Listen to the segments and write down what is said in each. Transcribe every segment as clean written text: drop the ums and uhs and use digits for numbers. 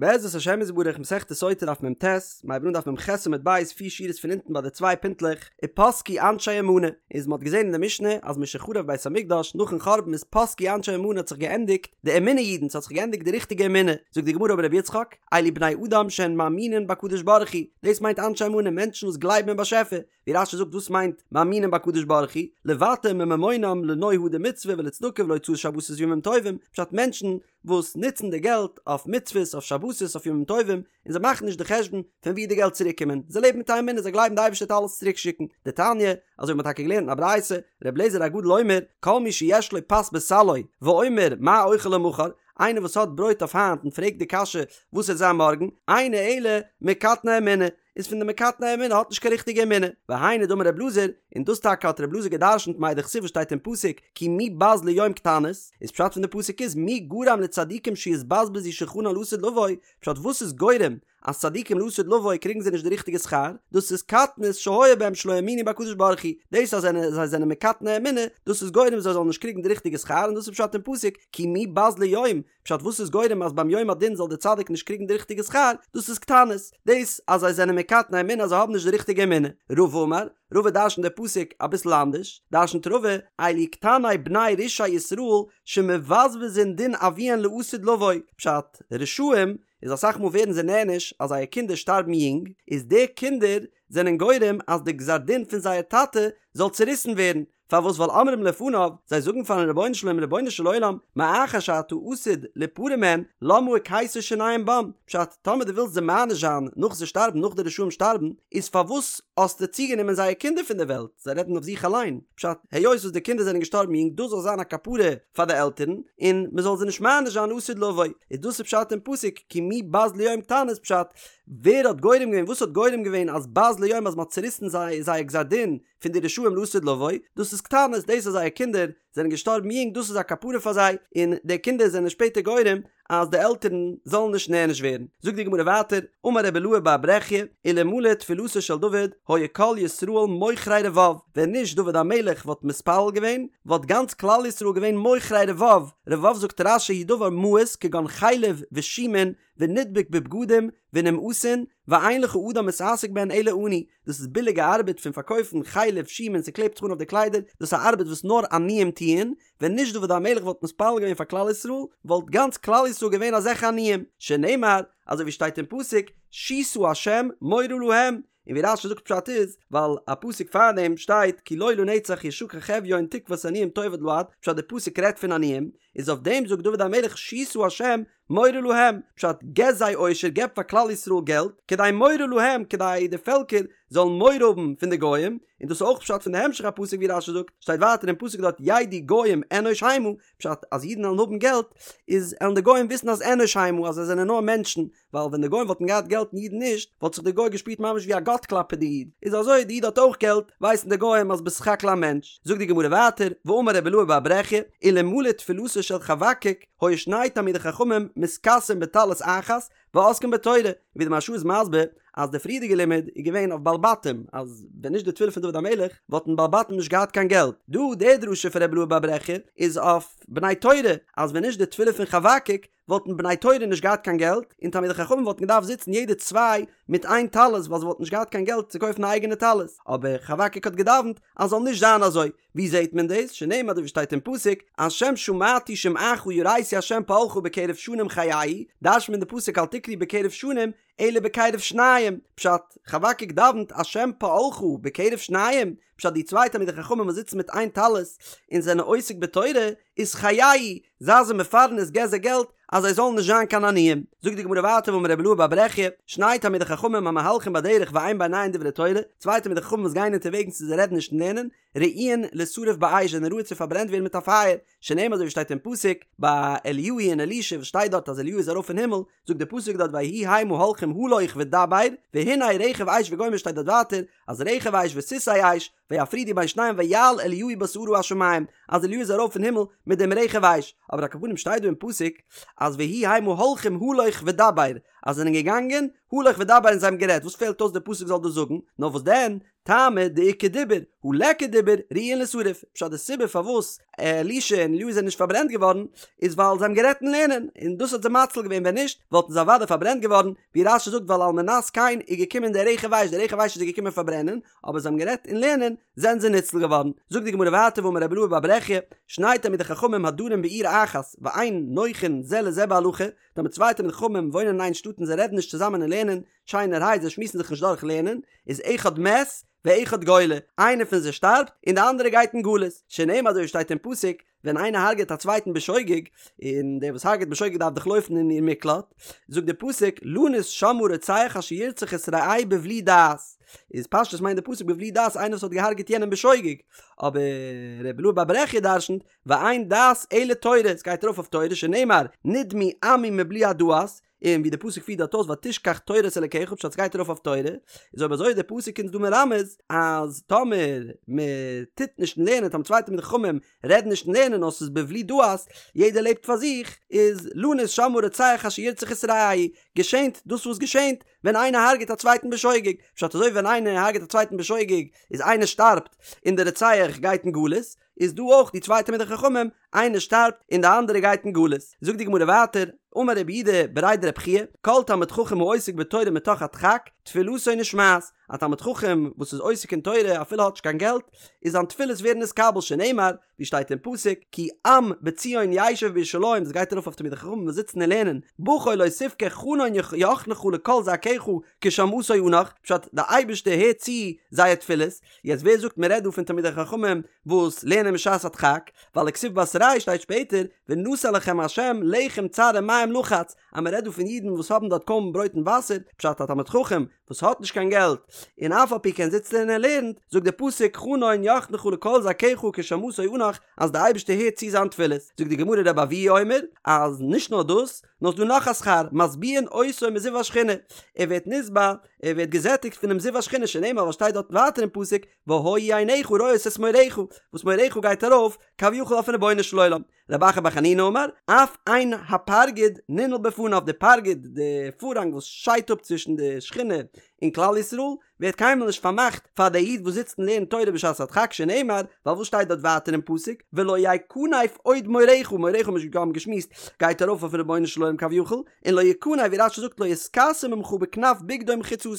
בעזרת השם יתברך מסכת סוטה דף מ"ט, מ'הייבט אן דף מ"ח עמוד ב', פיר שורות פון אונטן ביי די צוויי פינטלעך, ופסקו אנשי אמנה, איז מ'האט געזען אין די משנה אז משחרב בית המקדש נאכן חורבן איז פסקו אנשי אמנה האט זיך געענדיגט די אמונה אידן ס'האט זיך געענדיגט די ריכטיגע אמונה, זאגט די גמרא אמר רבי יצחק, אלו בני אדם שהן מאמינין בקדוש ברוך הוא, דאס מיינט אנשי אמנה מענטשן וואס גלייבן אין באשעפער, ווי רש"י זאגט וואס מיינט מאמינים בקדוש ברוך הוא, לוותר מממונם לנוי הדר מצוה ולצדקה ולהוצאת שבתות וימים טובים, פשט מענטשן וואס נוצן די געלט אויף מצוות אויף שבתות אויף ימים טובים, און זיי מאכן נישט די חשבון פון ווי די געלט צוריק קומען, זיי לעבן מיט א אמונה זיי גלייבן די אייבערשטער וועט אלעס צוריק שיקן, דתניא, אזוי ווי מ'האט טאקע געלערנט אין א ברייתא, ר' אליעזר הגדול אומר, כל מי שיש לו פת בסלו, ואומר מה אוכל למחר, איינער וואס האט ברויט אויף היינט און פרעגט די קשיא וואס וועט זיין מארגן, אינו אלא מקטני אמונה, איז פון די מקטני אמונה האט נישט קיין ריכטיגע אמונה, והיינו דאמר רב אלעזר, און דאס טאקע האט רב אלעזר גע'דרשנ'ט מאי דכתיב וואס שטייט אין פסוק כי מי בז ליום קטנות, איז פשט פון די פסוק איז מי גרם לצדיקים שיתבזבזו שולחנן לעתיד לבוא, פשט וואס איז גורם אז צדיקים לעתיד לבוא קריגן זיי נישט די ריכטיגע שכר, דאס איז קטנות שהיה בהם שלא האמינו בקדוש ברוך הוא, דאס אז זיי זענען מקטני אמונה, דאס איז גורם זיי זאלן נישט קריגן די ריכטיגע שכר, און דאס איז פשט אין פסוק כי מי בז ליום, פשט וואס איז גורם אז ביים יום הדין זאל דער צדיק נישט קריגן די ריכטיגע שכר, דאס איז קטנות, דאס אז זיי זענען מקטני אמונה אז זיי האבן נישט די ריכטיגע אמונה. רבא אמר, רבא דרשנט די פסוק אביסל אנדערש, דרשנט רבא, אלו קטני בני רשעי ישראל שמבזבזין דין אביהן לעתיד לבוא, פשט, רשעים איז אסאך מאל ווערן זיי נענש אז זייער קינדער שטארבן יונג, איז די קינדער זענען גורם אז די גזר דין פון זייער טאטע זאל צוריסן ווערן, פארוואס ווייל אומרים לפניו, זיי זאגן פארן רבונו של עולם רבונו של עולם, מאחר שאתה עתיד ליפרע מהן, למה הקהית שיניהם בם, פשט, טאמער דו ווילסט זיי מעניש זיין נאך זיי שטארבן נאך די רשעים שטארבן, איז פארוואס האסטו צוגענומען זייער קינדער פון די וועלט, זיי רעדן אויף זיך אליין, פשט, היות וואס די קינדער זענען געשטארבן יונג דאס זאל זיין א כפרה פאר די עלטערן, און מען זאל זיי נישט מעניש זיין לעתיד לבוא, איז דאס איז פשט אין פסוק כי מי בז ליום קטנות פשט, ווער האט גורם געווען וואס האט גורם געווען אז בז ליום אז מען האט צוריסן זיי זייער גזר דין פון די רשעים לעתיד לבוא, דאס איז קטנות, דאס אז זייער קינדער זענען געשטארבן יונג דאס איז א כפרה פאר זיי, און די קינדער זענען שפעטער גורם אז די עלטערן זאלן נישט נענש ווערן. זאגט די גמרא ווייטער, אמר רבי אילעא בר ברכיה, אלמלא תפילתו של דוד, היו כל ישראל מוכרי רבב, ווען נישט דוד המלך וואלט מתפלל געווען, וואלט גאנץ כלל ישראל געווען מוכרי רבב, רבב זאגט רש"י הוא דבר מאוס כגון חלב ושומין ונדבק בבגדים ונמאסין, ואין לך אדם מתעסק בהן אלא עני, דאס איז ביליגע ארבעט פון פארקויפן חלב שומין ס'קלעבט זיך אן אויף די קליידער, דאס איז א ארבעט וואס נאר עניים טוען, ווען נישט דוד המלך וואלט מתפלל געווען פאר כלל ישראל, וואלט גאנץ כלל ישראל געווען אזעלכע עניים, שנאמר, אזוי ווי שטייט אין פסוק, שישא השם מורה להם, און ווי רש"י זאגט פשט איז, ווייל א פסוק פארדעם שטייט כי לא לנצח ישכח אביון תקות עניים תאבד לעד, פשט די פסוק רעדט פון עניים, איז אויף דעם זאגט דוד המלך שישא השם מורה להם, פשט, געב זיי עושר, געב פאר כלל ישראל געלט, כדי מורה להם, כדי די פעלקער זאלן מורא האבן פון די גוים, און דאס איז אויך פשט פון די המשך הפסוק ווי רש"י זאגט, שטייט ווייטער אין פסוק דארט ידעו גוים אנוש המה, פשט, אז אידן וועלן האבן געלט, איז עלן די גוים וויסן אז אנוש המה, אז זיי זענען נאר מענטשן, ווייל ווען די גוים וואלטן געהאט געלט און אידן נישט, וואלט זיך די גוי געשפירט ממש ווי א גאט כלפי די איד, איז אזוי די איד האט אויך געלט, ווייסן די גוים אז בסך הכל א מענטש. זאגט די גמרא ווייטער, ואמר רבי אילעא בר ברכיה, אלמלא תפילתו של חבקוק, היו שני תלמידי חכמים מתכסין בטלית אחת ועוסקין בתורה, ווי די מהרש"א איז מסביר אז די פריערדיגע לימוד איז געווען אויף בעלי בתים אז ווען נישט די תפילה פון דוד המלך וואלטן בעלי בתים נישט געהאט קיין געלט, דא די דרשה פון רבי אילעא בר ברכיה איז אויף בני תורה אז ווען נישט די תפילה פון חבקוק וואלטן בני תורה נישט געהאט קיין געלט און תלמידי חכמים וואלטן געדארפט זיצן יעדער צוויי מיט איין טלית ווייל זיי וואלטן נישט געהאט קיין געלט צו קויפן א אייגענע טלית, אבער חבקוק האט געדאווענט אז זאל נישט זיין אזוי, ווי זעהט מען דאס? שנאמר אזוי ווי שטייט אין פסוק, השם שמעתי שמעך יראתי השם פעלך בקרב שנים חייהו, דרש'נט מען די פסוק אל תקרי בקרב שנים, אלא בקרב שניים, פשט, חבקוק דאווענט השם פעלך בקרב שניים, פשט די צוויי תלמידי חכמים וואס זיצן מיט איין טלית און זענען עוסק בתורה, איז חייהו, זיי זיי מפרנס געב זיי געלט אז זיי זאלן נישט זיין קיין עניים. זאגט די גמרא ווייטער ואמר רבי אילעא בר ברכיה, שני תלמידי חכמים המהלכים בדרך ואין ביניהן דברי תורה, צוויי תלמידי חכמים וואס גייען אונטערוועגנס און זיי רעדן נישט אין לערנען, ראויין לישרף באש זענען ראוי צו פארברענט ווערן מיט א פייער, שנאמר אזוי ווי שטייט אין פסוק ביי אליהו און אלישע וואס שטייט דארט אז אליהו איז ארויף אין הימל, זאגט די פסוק דארט ויהי המה הולכים הלוך ודבר, והנה רכב אש וגומר שטייט דארט ווייטער אז רכב אש וסוסי אש, ויפרידו בין שניהם ויעל אליהו בסערה השמים, אז אליהו איז ארויף אין הימל מיט דעם רכב אש, אבער על כל פנים שטייט דא אין פסוק אז ויהי המה הולכים הלוך ודבר, אז זיי זענען געגאנגען הלוך ודבר און זיי האבן גערעדט, וואס פעלט אויס די פסוק זאל דאס זאגן, נאר וואס דען, טעמא דאיכא דיבור, הא ליכא דיבור, ראויין לישרף, פשט די סיבה פארוואס אלישע און אליהו זענען נישט פארברענט געווארן, איז ווייל זיי האבן גערעדט אין לערנען, און דאס האט זיי מציל געווען ווען נישט וואלטן זיי אוודאי פארברענט געווארן, ווי רש"י זאגט ווייל על מנת כן איז געקומען דער רכב אש, דער רכב אש איז זיי געקומען פארברענען, אבער זיי האבן גערעדט אין לערנען, זענען זיי ניצל געווארן. זאגט די גמרא ווייטער ואמר רבי אלעא בר ברכיה, שני תלמידי חכמים הדרים בעיר אחת, ואין נוחין זה לזה בהלכה, טאמער צוויי תלמידי חכמים וואוינען אין איין שטאט און זיי רעדן נישט צוזאמען אין לערנען, שיינערהייט זיי שמועסן זיך נישט דורך לערנען, איז אחד מת ואחד גולה, איינער פון זיי שטארבט און די אנדערע גייט אין גלות, שנאמר אזוי ווי שטייט אין פסוק, ווען איינער הרג'עט א צווייטן בשוגג, און דער וואס הרג'עט בשוגג דארף דאך לויפן אין עיר מקלט, זאגט דער פסוק, לנוס שמה רוצח אשר ירצח את רעהו בבלי דעת, איז פשטות מיינט דער פסוק בבלי דעת איינער וואס האט געהארגעט יענעם בשוגג, אבער רבי אלעא בר ברכיה דרשנ'ט, ואין דעת אלא תורה, עס גייט ארויף אויף תורה, שנאמר, נדמו עמי מבלי הדעת, און ווי די פסוק פירט דארט אויס ותשכח תורת אלקיך פשט סגייט ארויף אויף תורה, איז אויב אזוי איז די פסוק אונז דא מרמז אז טאמער מען טוט נישט אין לערנען טאמער צוויי תלמידי חכמים רעדן נישט אין לערנען נאר ס'איז בבלי דעת יעדער לעבט פאר זיך איז לנוס שמה רוצח אשר ירצח את רעהו געשענט דאס וואס געשענט ווען איינער הרג'ט א צווייטן בשוגג פשט אזוי ווי ווען איינער הרג'ט א צווייטן בשוגג איז איינער שטארבט און די רוצח גייט אין גלות איז דא אויך די צוויי תלמידי חכמים, איינער שטארבט און די אנדערע גייט אין גלות. זאגט די גמרא ווייטער, אמר רב יהודה בריה דרב חייא, כל תלמיד חכם העוסק בתורה מתוך הדחק, תפילתו נשמעת, א תלמיד חכם וואס איז עוסק אין תורה אפילו האט נישט קיין געלט, איז זיין תפילות ווערן נתקבל שנאמר, ווי שטייט אין פסוק, כי עם בציון ישב בירושלים, דאס גייט ארויף אויף תלמידי חכמים וואס זיצן און לערנען, בכה לא תבכה חנון יחנך לקול זעקך כי שמעתו אנך, פשט, די אייבערשטער הערט צו זייער תפילות, יעצט ווער זאגט מען רעדט דא פון תלמידי חכמים וואס לערנען בשעת הדחק, ווייל וכתיב בתריה שטייט שפעטער ונתן לכם ה' לחם צר ומים לחץ, אז מען רעדט דא פון אידן וואס האבן דארט קוים ברויט און וואסער, פשט א תלמיד חכם וואס האט נישט קיין געלט און אף על פי כן זיצט ער און ער לערנט, זאגט דער פסוק חנון יחנך לקול זעקך כי שמעתו אנך אז די אייבערשטער הערט צו זיין תפילות, זאגט די גמרא רבי אבהו אומר אז נישט נאר דאס, נאר ס'דא נאך א שכר, משביעין אותו מזיו השכינה, ער ווערט נשבע, ער ווערט געזעטיגט פונעם זיו השכינה שנאמר וואס שטייט דארט ווייטער אין פסוק והיו עיניך רואות את מוריך, וואס מוריך גייט ארויף כביכול אויפן רבונו של עולם. רב אחא בר חנינא אמר, אף אין הפרגוד ננעל בפניו, די פרגוד, די פארהאנג וואס שיידט אפ צווישן די שכינה און כלל ישראל, ווערט קיינמאל נישט פארמאכט פאר דער איד וואס זיצט און לערנט תורה בשעת הדחק שנאמר, ווייל וואס שטייט דארט ווייטער אין פסוק, ולא יכנף עוד מורך, מורך האבן מיר שוין געשמועסט, גייט ארויף אויפן רבונו של עולם כביכול, און לא יכנף ווי רש"י זאגט לא יתכסה ממך בכנף בגדו ומחיצתו,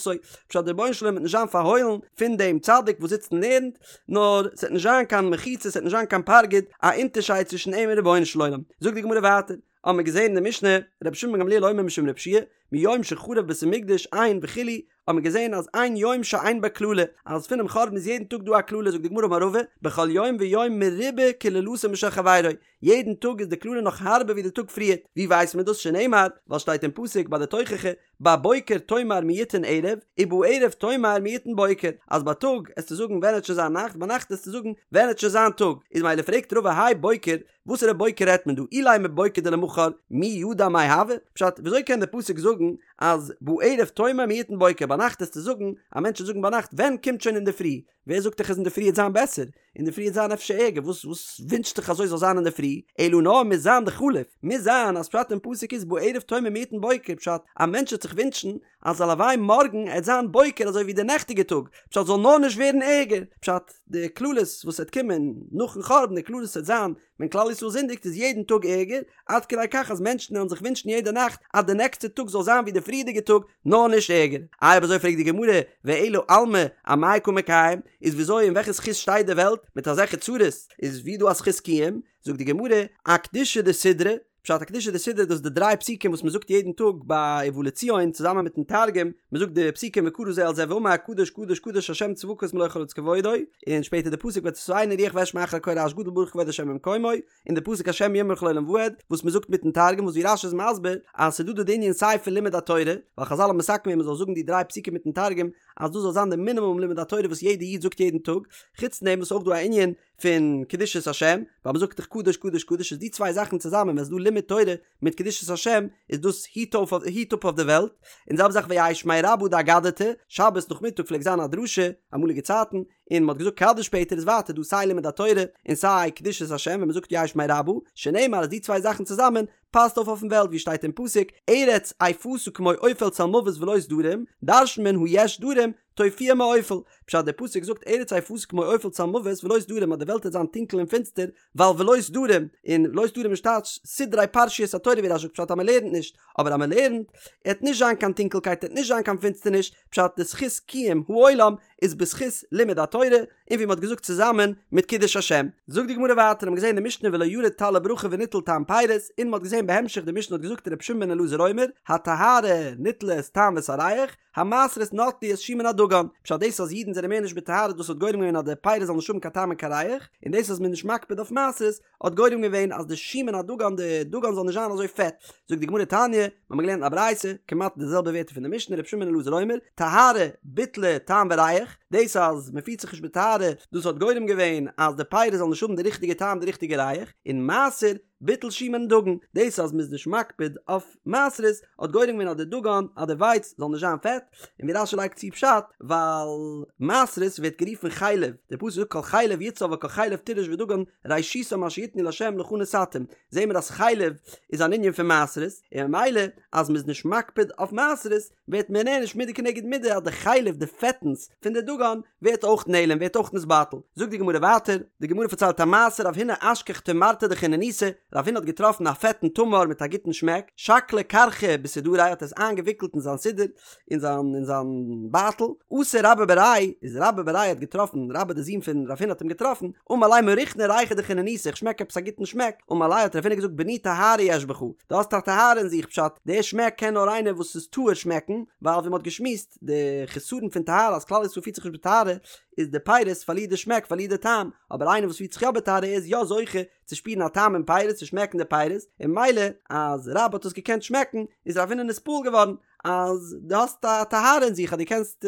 פשט דער רבונו של עולם וועט נישט זיין פארהוילן פון דעם צדיק וואס זיצט און לערנט, נאר ס'וועט נישט זיין קיין מחיצה ס'וועט נישט זיין קיין פרגוד, א אונטערשייד צווישן אים און רבונו של עולם. זאגט די גמרא ווייטער, האבן מיר געזען אין די משנה, רבי שמעון בן גמליאל אומר משום רבי יהושע מיום שחרב בית המקדש אין וכו', האבן מיר געזען אז אין יום שאין בו קללה, אז פונעם חורבן איז יעדן טאג דא א קללה, זאגט די גמרא אמר רבא, בכל יום ויום מרובה קללתו משל חברו, יעדן טאג איז די קללה נאך הארבער ווי די טאג פריערט, ווי ווייסט מען דאס שנאמר, ווייל שטייט אין פסוק ביי די תוכחה, בבוקר תאמר מי יתן ערב, ובערב תאמר מי יתן בוקר, אז בייטאג עסטו זאגן ווען עט שוין זיין נאכט, ביינאכט עסטו זאגן ווען עט שוין זיין טאג, איז מילא פרעגט רבא האי בוקר, וואסערע בוקר רעדט מען דא, אילימא בוקר דלמחר, מי ידע מאי הוי? פשט, וויאזוי קען דער פסוק זאגן אז בערב תאמר מי יתן בוקר, ביינאכט עסטו זאגן, א מענטש וועט זאגן ביינאכט ווען קומט שוין אינדערפרי, ווער זאגט דיך אז אינדערפרי עט זיין בעסער? אינדערפרי עט זיין אפשר ערגער, וואס וואס ווינטשט דיך אזוי זאל זיין אינדערפרי? אלא נאר מוז זיין דחליף, מוז זיין אז פשט אין פסוק איז בערב תאמר מי יתן בוקר, פשט, א מענטש וועט זיך ווינטשן אז הלוואי מארגן עט זיין בוקר אזוי ווי די נעכטיגע טאג, פשט זאל נאר נישט ווערן ערגער, פשט, די קללות וואס עט קומען נאכן חורבן, די קללות עט זיין ווען כלל ישראל זינדיגט איז יעדן טאג ערגער, עד כדי כך אז מענטשן וועלן זיך ווינטשן יעדע נאכט אז די נעקסטע טאג זאל זיין ווי די פריערדיגע טאג, נאר נישט ערגער. איי אויב אזוי פרעגט די גמרא, ואלא עלמא אמאי קא מיקיים, איז וויאזוי אין וועלכע זכות שטייט די וועלט מיט אזעלכע צרות, איז ווי דא א זכות קיום, זאגט די גמרא, אקדושה דסידרא, פשט אקדושה דסידרא דאס איז די דריי פסוקים וואס מען זאגט יעדן טאג ביי ובא לציון צוזאמען מיטן תרגום, מען זאגט די פסוקים וקרא זה אל זה ואמר קדוש קדוש קדוש השם צבקות מלא כל הארץ כבודו, און שפעטער די פסוק ותשאני רוח ואשמע אחרי קול רעש גדול ברוך כבוד השם ממקומו, און די פסוק השם ימרוך לעולם ועד וואס מען זאגט מיטן תרגום וואס ווי רש"י איז מסביר אז ס'איז דא דא די ענין סיי פון לימוד התורה, ווייל חז"ל האבן מתקן געווען מען זאל זאגן די דריי פסוקים מיטן תרגום אז דאס זאל זיין די מינימום לימוד התורה וואס יעדע איד זאגט יעדן טאג, חוץ דעם וואס אויך דא א ענין פון קדושת השם, ווייל מ'זאגט דאך קדוש קדוש קדוש איז די צוויי זאכן צוזאמען ווען ס'איז דא לימוד תורה מיט קדושת השם איז דאס היט אויף היט אפ אויף די וועלט, און זעלבע זאך ויהא שמיה רבא דאגדתא, שבת נאכמיטאג פלעגט זיין א דרשה, אמאליגע צייטן, און מ'האט געזאגט קדיש שפעטער איז ווייטער דא סיי לימוד התורה און סיי קדושת השם ווען מ'זאגט יהא שמיה רבא, שנאמר אז די צוויי זאכן צוזאמען. פאסט אויף אויפן וועלט ווי שטייט אין פסוק ארץ אפתה כמו אופל צלמוות ולא סדרים, דרש'נט מען הא יש סדרים, תופיע מאופל, פשט דער פסוק זאגט ארץ אפתה כמו אופל צלמוות ולא סדרים אז די וועלט וועט זיין טונקל און פינסטער ווייל ולא סדרים, און ולא סדרים איז טייטש סדרי פרשיות התורה ווי רש"י זאגט פשט אז מען לערנט נישט, אבער אז מען לערנט עט נישט זיין קיין טונקלקייט עט נישט זיין קיין פינסטערניש, פשט די זכות קיום העולם איז בזכות לימוד התורה, און ווי מען האט געזאגט צוזאמען מיט קידוש השם. זאגט די גמרא ווייטער האט מען געזען אין די משנה ולא ירד טל לברכה וניטל טעם פירות, און מען האט געזען בהמשך די משנה האט געזאגט ר' שמעון בן אלעזר אומר הטהרה ניטלה את טעם ואת הריח, המעשרות נטלו את שומן הדגן, פשט דאס אז אידן זענען מער נישט בטהרה דאס האט גורם געווען אז די פירות זאלן נישט האבן קיין טעם און קיין ריח, און דאס אז מען איז נישט מקפיד אויף מעשרות האט גורם געווען אז די שומן הדגן די דגן זאל נישט זיין אזוי פעט, זאגט די גמרא תניא, מיר האבן געלערנט א ברייתא, כמעט די זעלבע ווערטער פון די משנה רבי שמעון בן אלעזר אומר, טהרה ביטלה טעם וריח, דאס אז מען פירט זיך נישט בטהרה דאס האט גורם געווען אז די פירות זאלן נישט האבן די ריכטיגע טעם די ריכטיגע ריח, און מעשר ביטל שומן דגן, דאס אז מ'איז נישט מקפיד אויף מעשרות האט גורם געווען אז די דגן אז די ווייץ זאל נישט זיין פעט, און ווי רש"י לייגט צו פשט, ווייל מעשרות ווערט גערופן חלב, דער פסוק זאגט כל חלב יצהר וכל חלב תירוש ודגן ראשיתם אשר יתנו לה' לך נתתים, זעהן מיר אז חלב איז אן ענין פון מעשרות, און ממילא אז מ'איז נישט מקפיד אויף מעשרות ווערט מען נענש מידה כנגד מידה אז די חלב די פעטנס פון די דגן ווערט אויך נעלם ווערט אויך נתבטל. זאגט די גמרא ווייטער, די גמרא פארציילט א מעשה רב הונא אשכח תמרתא דחינוניתא, רב הונא האט געטראפן א פעטן תמר מיט א גוטן שמעק, שקליה כרכא בסודריה האט עס איינגעוויקלט אין זיין סודר, אין זיין אין זיין בייטל, אתא רבה בריה, איז רבה בריה האט געטראפן, רבה די זון פון רב הונא האט אים געטראפן, אמר ליה מריחנא ריחא דחינוניתא איך שמעק עפעס א גוטן שמעק, אמר ליה האט רב הונא געזאגט בני טהרה יש בך, דו האסט א טהרה אין זיך פשט, די שמעק קען נאר איינער וואס איז טהור שמעקן, ווייל ווי מען האט געשמועסט, די חסרון פון טהרה אז כלל ישראל פירט זיך נישט בטהרה, איז די פירות פארלירט די שמעק פארלירט די טעם, אבער איינער וואס פירט זיך יא בטהרה איז יא זוכה צו שפירן א טעם אין פירות צו שמעקן די פירות, און ממילא אז רבה האט עס געקענט שמעקן איז רב הונא נתפעל געווארן אז דו האסט א טהרה אין זיך אז דו קענסט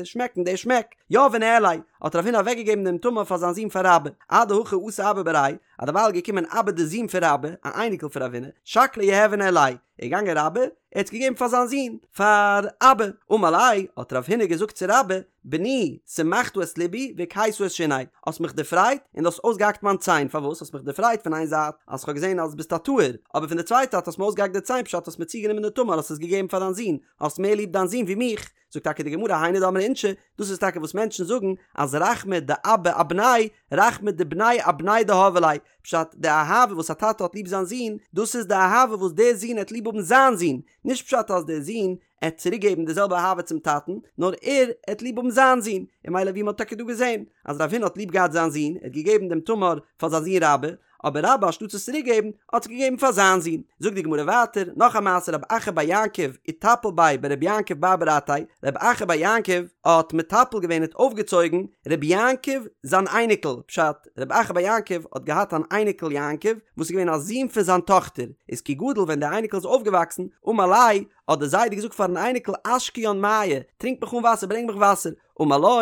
שמעקן די שמעק. יהביה ניהליה, האט רב הונא אוועקגעגעבן דעם תמר פאר זיין זון פאר רבה, אדהכי אתא אבא בריה, אז דערווייל איז געקומען אבא די זון פון רבה, א אייניקל פון רב הונא, שקליה יהביה ניהליה, איז געגאנגען רבה, ער האט עס געגעבן פאר זיין זון, פאר אבא, אמר ליה, האט רב הונא געזאגט צו רבה, בני, שמחת את לבי, והקהית את שיני, האסט מיך דערפרייט, און דו האסט אויסגעהאקט מיין ציין, פארוואס האסט מיך דערפרייט פון איין זייט, אז כ'האב געזען אז ביסט א טהור, אבער פון די צווייטע זייט האסט מיר אויסגעהאקט די ציין פשט האסט מיר צוגענומען די תמר האסט עס געגעבן פאר דיין זון, האסט מער ליב דיין זון ווי מיך, זאגט טאקע די גמרא היינו דאמרי אינשי, דאס איז טאקע וואס מענטשן זאגן, אז רחמי דאבא אבניה, רחמי דבניה אבניה דהוו ליה, פשט, די אהבה וואס א טאטע האט ליב זיין זון, דאס איז די אהבה וואס דער זון העט ליב האבן זיין זון, נישט פשט אז דער זון עט צוריק געבן די זעלבע אהבה צום טאטן, נאר ער עט ליב האבן זיין זון, און ממילא ווי מען האט טאקע דא געזען, אז רב הונא האט ליב געהאט זיין זון, ער האט געגעבן דעם תמר פאר זיין זון רבה, אבער רבה אנשטאטס עס צוריק געבן, האט עס געגעבן פאר זיין זון. זאגט די גמרא ווייטער, נאך א מעשה רב אחא בר יעקב איטפל ביה ברבי יעקב בר ברתיה, רב אחא בר יעקב האט מטפל געווען האט אויפגעצויגן רבי יעקב זיין אייניקל, פשט, רב אחא בר יעקב האט געהאט אן אייניקל יעקב וואס איז געווען א זון פון זיין טאכטער, איז כי גדיל ווען דער אייניקל איז אויפגעוואקסן, אמר ליה, האט דער זיידע געזאגט פארן אייניקל אשקיין מיא, טרינק מיך אן וואסער, ברענג מיך וואסער, אמר לו,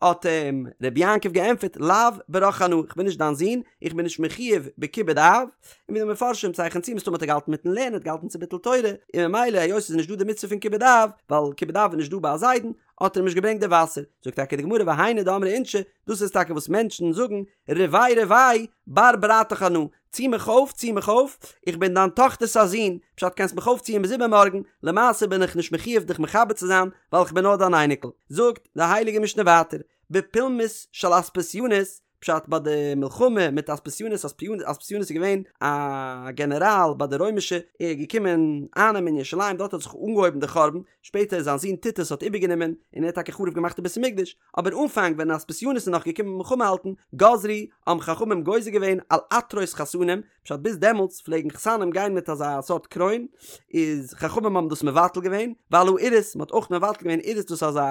האט אים רבי יעקב געענטפערט, לאו ברך אנא, איך בין נישט דיין זון, איך בין נישט מחויב בכיבוד אב, און ווי די מפרשים צייכענען צו מסתמא האט ער געהאלטן מיטן לערנען, האט געהאלטן צו ביטול תורה, און ממילא היות ס'איז נישט דא די מצוה פון כיבוד אב, ווייל כיבוד אב איז נישט דא ביי א זיידן, האט ער אים נישט געברענגט די וואסער, זאגט טאקע די גמרא והיינו דאמרי אינשי, דאס איז טאקע וואס מענטשן זאגן, רבעי רבעי, בר ברתך אנא, צי מיך אויף, צי מיך אויף, איך בין דיין טאכטער'ס א זון, פשט קענסט מיך אויפציען ביז איבערמארגן, למעשה בין איך נישט מחויב דיך מכבד צו זיין, ווייל איך בין נאר דיין אייניקל. זאגט די הייליגע משנה ווייטער, בפולמוס של אספסיונוס, פשט ביי די מלחמה מיט אספסיונוס, אספסיונוס איז געווען א גענעראל ביי די רוימישע, ער איז געקומען אייננעמען ירושלים, דארט האט זיך אנגעהויבן די חורבן, שפעטער זיין זון טיטוס האט איבערגענומען און ער האט טאקע חרוב געמאכט די בית המקדש, אבער אנפאנג ווען אספסיונוס איז נאך געקומען מלחמה האלטן, גזרו, האבן חכמים גוזר געווען על עטרות חתנים, פשט ביז דעמאלטס פלעגן חתנים גיין מיט אזא סארט קרוין, איז חכמים האבן דאס מבטל געווען, ועל האירוס, מען האט אויך מבטל געווען אירוס דאס איז אזא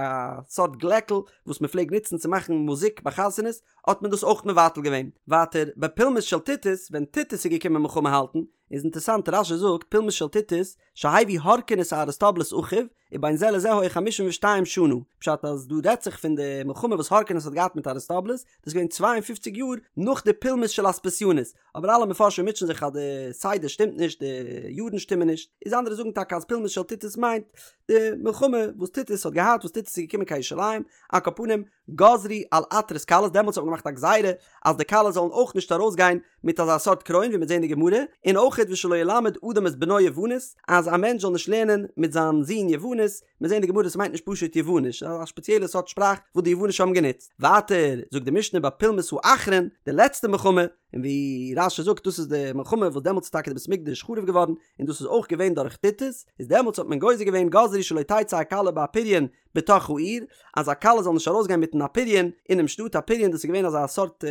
סארט גלעקל וואס מען פלעגט נוצן צו מאכן מוזיק ביי חתונות, האט מען דאס אויך מבטל געווען. ווייטער, בפולמוס של טיטוס, ווען טיטוס איז געקומען מלחמה האלטן, איז אינטערסאנט רש"י זאגט פולמוס של טיטוס, שהביא הורקנוס אריסטובולוס אחיו, ובין זה לזה היו חמישים ושתיים שנה, פשט אז דא רעדט זיך פון די מלחמה וואס הורקנוס האט געהאט מיט אריסטובולוס, דאס איז געווען 52 יאר נאך די פולמוס של אספסיונוס, אבער אלע מפרשים מוטשען זיך אז די סדר שטימט נישט, די יארן שטימען נישט, איז אנדערע זאגן טאקע אז פולמוס של טיטוס מיינט די מלחמה וואס טיטוס האט געהאט וואס טיטוס איז געקומען קיין ירושלים, על כל פנים גזרו על עטרות כלות, דעמאלטס האט מען געמאכט א גזירה אז די כלות זאלן אויך נישט ארויסגיין מיט אזא סארט קרוין ווי מ'וועט זען אין די גמרא, און אויכעט ושלא ילמד אדם את בנו יוונית, אז א מענטש זאל נישט לערנען מיט זיין זון יוונית, מ'וועט זען אין די גמרא ס'מיינט נישט פשוט יווניש, א שפעציעלע סארט שפראך וואס די יוונישע האבן גענוצט. ווייטער זאגט די משנה בפולמוס האחרון, די לעצטע מלחמה, און ווי רש"י זאגט דאס איז די מלחמה וואס דעמאלטס איז טאקע די בית המקדש חרוב געווארן, און דאס איז אויך געווען דורך טיטוס, איז דעמאלטס האט מען גוזר געווען גזרו שלא תצא הכלה באפריון בתוך העיר, אז א כלה זאל נישט ארויסגיין מיטן אפריון אינעם שטאט, אפריון דאס איז געווען אזא סארט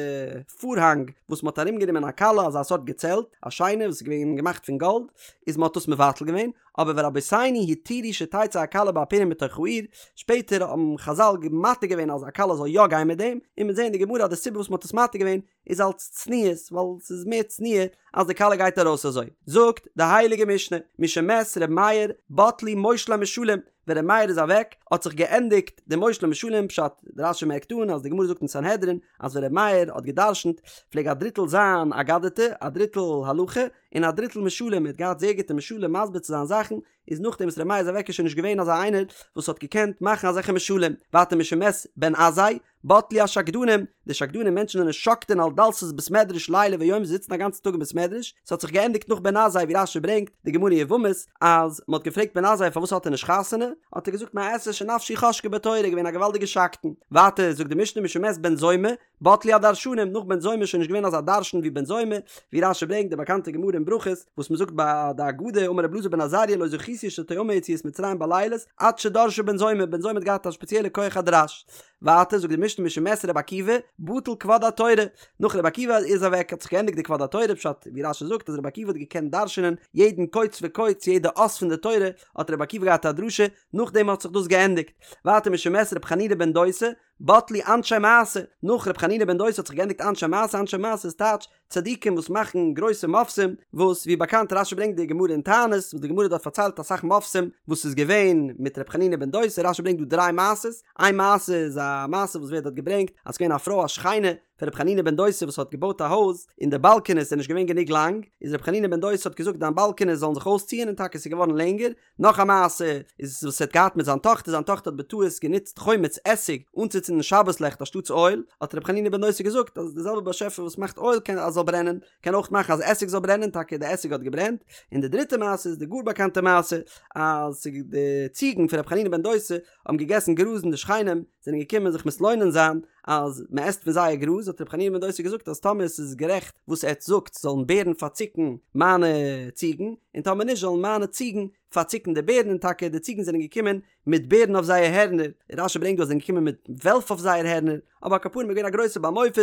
פארהאנג וואס מען האט ארומגענומען א כלה, אזא סארט געצעלט, א שיינע וואס איז געווען געמאכט פון גאלד, איז מען האט דאס מבטל געווען, אבער ורבותינו התירו שתצא הכלה באפריון בתוך העיר, שפעטער האבן חזל מתיר געווען אז א כלה זאל יא גיין מיט דעם, און מ'וועט זען אין די גמרא אז די סיבה וואס מען האט עס מתיר געווען איז אלס צניעות, ווייל ס'איז מער צניעה אז די כלה גייט ארויס אזוי. זאגט די הייליגע משנה, משמת ר' מאיר בטלו מושלי משלים, ווען ר' מאיר איז אוועק האט זיך געענדיגט די מושלי משלים, פשט, רש"י מערקט אן אז די גמרא זאגט אין סנהדרין אז ווען ר' מאיר האט גע'דרש'נט פלעג א דריטל זיין אגדתא, א דריטל הלכה, און א דריטל משלים, ער האט געהאט זייער גוטע משלים מסביר צו זיין זאכן, איז נאכדעם וואס ר' מאיר איז אוועק איז שוין נישט געווען אזא איינער וואס האט געקענט מאכן אזעלכע משלים, ווייטער משמת בן עזאי, בטלו השקדנים, די שקדנים מענטשן זענען שוקדין על דלתות בית מדרש לילה ויום זיי זיצן א גאנצן טאג אין בית מדרש, ס'האט זיך געענדיגט נאך בן עזאי ווי רש"י ברענגט די גמרא יבמות אז מ'האט געפרעגט בן עזאי פארוואס האט ער נישט חתונה, האט ער געזאגט מה אעשה שנפשי חשקה בתורה געווען א געוואלדיגע שקדן, ווייטער זאגט די משנה משמת בן זומא, בטלו הדרשנים, נאך בן זומא איז שוין נישט געווען אזא דרשן ווי בן זומא, ווי רש"י ברענגט די באקאנטע גמרא אין ברכות, וואס מ'זאגט ביי די הגדה, אמר רבי אלעזר בן עזריה לא זכיתי שתאמר יציאת מצרים בלילות, עד שדרשה בן זומא, בן זומא האט געהאט א שפעציעלע כח הדרש. ווייטער זאגט די משנה משמת רבי עקיבא, בטל כבוד התורה, נאך רבי עקיבא איז אוועק האט זיך געענדיגט די כבוד התורה, פשט ווי רש"י זאגט אז רבי עקיבא האט געקענט דרש'נען יעדן קוץ וקוץ יעדע אות פון די תורה, האט רבי עקיבא געהאט א דרשה, נאכדעם האט זיך דאס געענדיגט. ווייטער משמת רבי חנינא בן דוסא, בטלו אנשי מעשה, נאך ר' חנינא בן דוסא האט זיך געענדיגט אנשי מעשה, אנשי מעשה איז טייטש צדיקים וואס מאכן גרויסע מופתים, וואס ווי באקאנט רש"י ברענגט די גמרא אין תענית, וואס די גמרא דארט פארציילט אסאך מופתים וואס איז געווען מיט ר' חנינא בן דוסא, רש"י ברענגט דא דריי מעשות, איין מעשה איז א מעשה וואס ווערט דארט געברענגט אז ס'געווען א פרוי א שכנה פון ר' חנינא בן דוסא וואס האט געבויט א הויז און די באלקענעס זענען נישט געווען גענוג לאנג, איז ר' חנינא בן דוסא האט געזאגט דיין באלקענעס זאלן זיך אויסציען און טאקע ס'איז געווארן לענגער, נאך א מעשה איז וואס ער האט געהאט מיט זיין טאכטער, זיין טאכטער האט בטעות גענוצט חומץ עסיג אנצוצינדן שבת לעכט אנשטאטס אויל, האט רבי חנינא בן דוסא געזאגט אז דער זעלבער באשעפער וואס מאכט אויל קען אז זאל ברענען, קען אויך מאכן אז עסיג זאל ברענען, טאקע די עסיג האט געברענט, און די דריטע מעשה איז די גאר באקאנטע מעשה אז די ציגן פון רבי חנינא בן דוסא האבן געגעסן גראז און די שכנים זענען געקומען זיך מתלונן זיין אז מען עסט פון זייער גראז, האט רבי חנינא בן דוסא געזאגט אז טאמער עס איז גערעכט וואס עטץ זאגט זאלן בערן פארציקן מיינע ציגן, און טאמער נישט זאלן מיינע ציגן פארציקן די בערן, און טאקע די ציגן זענען געקומען מיט בערן אויף זייער הערנער, רש"י ברענגט דא אז זיי זענען געקומען מיט וועלף אויף זייער הערנער, אבער על כל פנים איז געווען א גרויסע בעל מופת,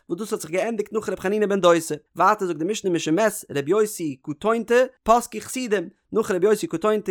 וואס דאס האט זיך געענדיגט נאך רבי חנינא בן דוסא. ווייטער זאגט די משנה משמת ר' יוסי קטונתא פסקו חסידים, נאך ר' יוסי קטונתא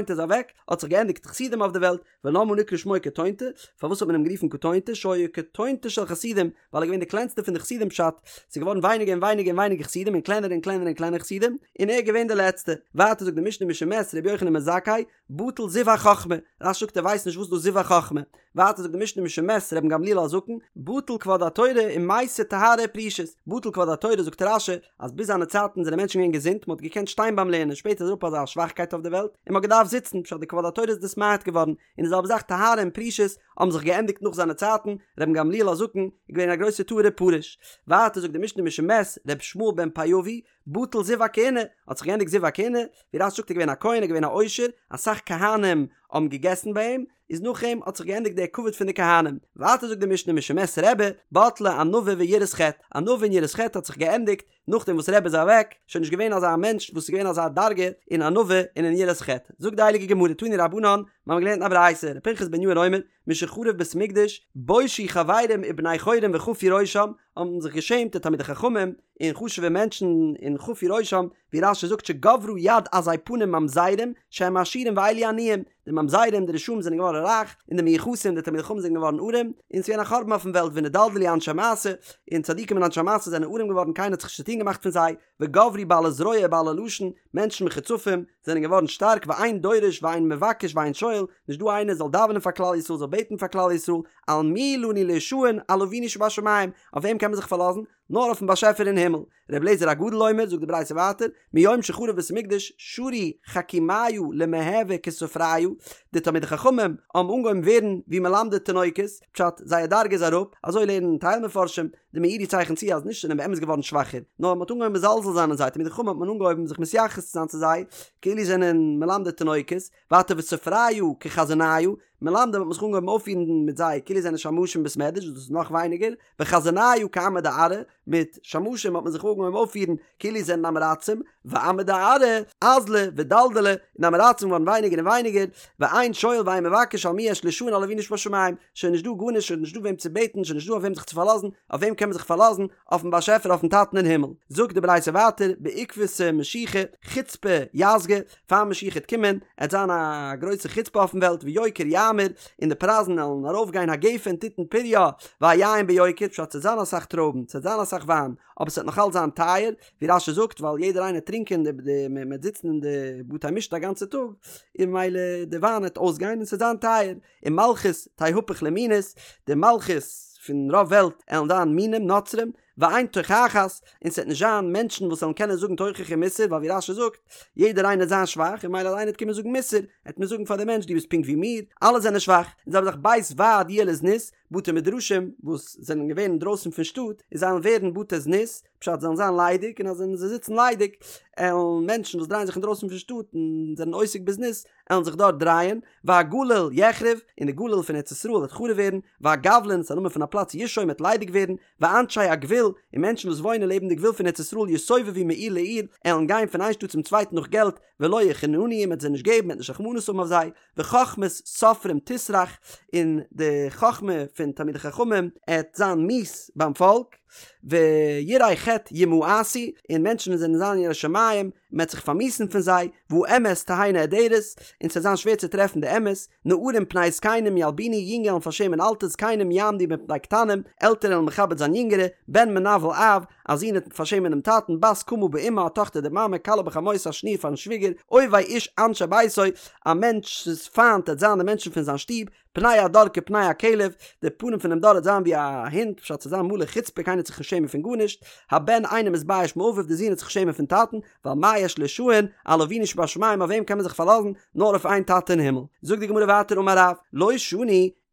איז אוועק האט זיך געענדיגט חסידים אויף די וועלט, ולמה נקרא שמו קטונתא, פארוואס האט מען אים גערופן קטונתא, שהיה קטונתא של חסידים, ווייל ער איז געווען די קלענסטע פון די חסידים פשט, ס'איז געווארן ווייניגער און ווייניגער און ווייניגער חסידים און קלענער און קלענער און קלענער חסידים, און ער איז געווען די לעצטע. ווייטער זאגט די משנה משמת ר' יוחנן בן זכאי, בטל זיו החכמה, רש"י זאגט ער ווייסט נישט וואס דאס זיו החכמה. ווייטער זאגט די משנה משמת רבן גמליאל הזקן, בטל כבוד התורה ומתה טהרה ופרישות, בטל כבוד התורה זאגט רש"י אז ביז זיינע צייטן זענען מענטשן געווען געזונט מען האט געקענט שטיין ביים לערנען שפעטער איז אראפ אזא שוואכקייט אויף די וועלט און מען האט געדארפט זיצן פשט די כבוד התורה איז נתמעט געווארן און די זעלבע זאך טהרה און פרישות האבן זיך געענדיגט נאך זיינע צייטן, רבן גמליאל הזקן איז געווען א גרויסער טהור ופרוש. ווייטער זאגט די משנה משמת ר' ישמעאל בן פיאבי, בטל זיו הכהונה, האט זיך געענדיגט זיו הכהונה, ווי רש"י זאגט איז געווען א כהן איז געווען א עושר, אסאך כהנים האבן געגעסן ביי אים, איז נאך אים האט זיך געענדיגט דער כבוד פון די כהנים. ווייטער זאגט די משנה משמת רבי, בטלה ענווה ויראת חטא, ענווה און יראת חטא האט זיך געענדיגט נאכדעם וואס רבי איז אוועק, שוין נישט געווען אזא מענטש וואס איז געווען אזא דרגה אין ענווה און אין יראת חטא. זאגט די הייליגע גמרא תנו רבנן, מיר האבן געלערנט אין א ברייתא, ר' פנחס בן יאיר אומר, משחרב בית המקדש, בושו חברים ובני חורין וחפו ראשם, האבן זיך געשעמט די תלמידי חכמים און חשוב'ע מענטשן און חפו ראשם, ווי רש"י זאגט שגברה יד עזי פנים ממזרים שהם עשירים ואלו עניים, די ממזרים די רשעים זענען געווארן רייך, און די מיוחסים די תלמידי חכמים זענען געווארן ארעם, און ס'איז געווען א חורבן אויפן וועלט ונדלדלו אנשי מעשה, און צדיקים און אנשי מעשה זענען ארעם געווארן קיינער האט זיך נישט צוטון געמאכט פון זיי, וגברו בעלי זרוע ובעלי לשון, מענטשן מחוצפים, זענען געווארן שטארק ואין דורש ואין מבקש ואין שואל, נישט דא איינער זאל דאווענען פאר כלל ישראל זאל בעטן פאר כלל ישראל, על מי לנו להישען על אבינו שבשמים, אויף וועם קען מען זיך פארלאזן? נאר אויפן באשעפער אין הימל. ר' אליעזר הגדול אומר, זאגט די ברייתא ווייטער, מיום שחרב בית המקדש שרו חכימיא למהוי כסופריא, די תלמידי חכמים האבן אנגעהויבן ווערן ווי מלמדי תינוקות, פשט, זייער דרגה איז אראפ, אזוי לערנען טייל מפרשים, די מאירי צייכנט צו אז נישט זענען באמת געווארן שוואכער, נאר מען האט אנגעהויבן מזלזל זיין אין זיי, תלמידי חכמים האט מען אנגעהויבן זיך מתייחס צו זיין צו זיי כאילו זענען מלמדי תינוקות, ווייטער וסופריא כחזניא, מלמדים האט מען זיך אנגעהויבן אויפפירן מיט זיי כאילו זענען שמשים בית מדרש וואס דאס איז נאך ווייניגער, וחזניא כעמי דארעא, מיט שמשים האט מען זיך אנגעהויבן אויפפירן כאילו זענען עם הארצים, ועמי דארעא אזלו ודלדלו, און עם הארצים געווארן ווייניגער און ווייניגער, ואין שואל ואין מבקש על מי יש להישען על אבינו שבשמים, שוין נישט דא גארנישט, שוין נישט דא וועם צו בעטן, שוין נישט דא אויף וועם זיך צו פארלאזן, אויף וועם קען מען זיך פארלאזן? אויפן באשעפער אויפן טאטן אין הימל. זאגט די ברייתא ווייטער, בעקבתא משיחא, חוצפא יסגא, פאר משיח העט קומען, עט זיין א גרויסע חוצפה אויפן וועלט, ויוקר יאמיר, און די פרייזן עלן ארויף גיין הגפן תתן פריה, והיין ביוקר, פשט ס'עט זיין אסאך טרויבן, ס'עט זיין אסאך וויין, אבער ס'עט נאך אלץ זיין טייער, ווי רש"י זאגט, ווייל יעדער איינער טרינקען די די מ'עט זיצן אין די בתי משתה א גאנצע טאג, און ממילא די וויין עט אויסגיין און ס'עט זיין טייער, און מלכות תהפך למינות, די מלכות פון רוב וועלט עלן זיין מינים, נוצרים, ואין תוכחת, און ס'וועט נישט זיין מענטשן וואס וועלן קענען זאגן תוכחה און מוסר, ווייל ווי רש"י זאגט, יעדער איינער וועט זיין שוואך, און ממילא אז איינער וועט קומען זאגן מוסר, וועט מען זאגן פאר דעם מענטש דו ביסט פונקט ווי מיר, אלע זענען שוואך, און זיי האבן זיך בית ועד יהיה לזנות, בתי מדרשים וואס זענען געווען אינדרויסן פון שטאט, און זיי וועלן ווערן בתי זנות, פשט זיי וועלן זיין ליידיג, און אז זיי זיצן ליידיג, עלן מענטשן וואס דרייען זיך אינדרויסן פון שטאט און זענען עוסק בזנות, עלן זיך דארט דרייען, והגליל יחרב, און די גליל פון ארץ ישראל וועט חרוב ווערן, והגבלין, ס'איז א נאמען פון א פלאץ, ישום וועט ליידיג ווערן, ואנשי הגבול, און מענטשן וואס וואוינען לעבן די גבול פון ארץ ישראל יסובבו מעיר לעיר, עלן גיין פון איין שטאט צום צווייטן נאך געלט, ולא יחננו, מ'וועט זיי נישט געבן, מ'וועט נישט רחמנות האבן אויף זיי, וחכמת סופרים תסרח, און די חכמה פון תלמידי חכמים עט זיין מיאוס ביים פאלק, ויראי חטא ימאסו, און מענטשן וואס זענען זיין ירא שמים, מ'עט זיך פארמיאוסן פון זיי, והאמת תהא נעדרת, און ס'עט זיין שווער צו טרעפן די אמת, נערים פני זקנים ילבינו, יונגע עלן פארשעמען אלטע, זקנים יעמדו מפני קטנים, עלטערע עלן מכבד זיין יונגערע, בן מנוול אב, א זון עט פארשעמען דעם טאטן, בת קמה באמה, א טאכטער די מאמע, כלה בחמותה, א שניר פארן שוויגער, אויבי איש אנשי ביתו, א מענטש'ס פיינט עט זיין די מענטשן פון זיין שטוב, פני הדור כפני הכלב, די פנים פונעם דור עט זיין ווי א הונט, פשט ס'עט זיין מלא חוצפה קיינער עט זיך נישט שעמען פון גארנישט, הבן אינו מתבייש מאביו די זון עט זיך שעמען פון טאטן, ועל מה יש להשען, על אבינו שבשמים אויף וועם קען מען זיך פארלאזן, נאר אויף איין טאטע אין הימל. זאגט די גמרא ווייטער אמר רב, לא שנו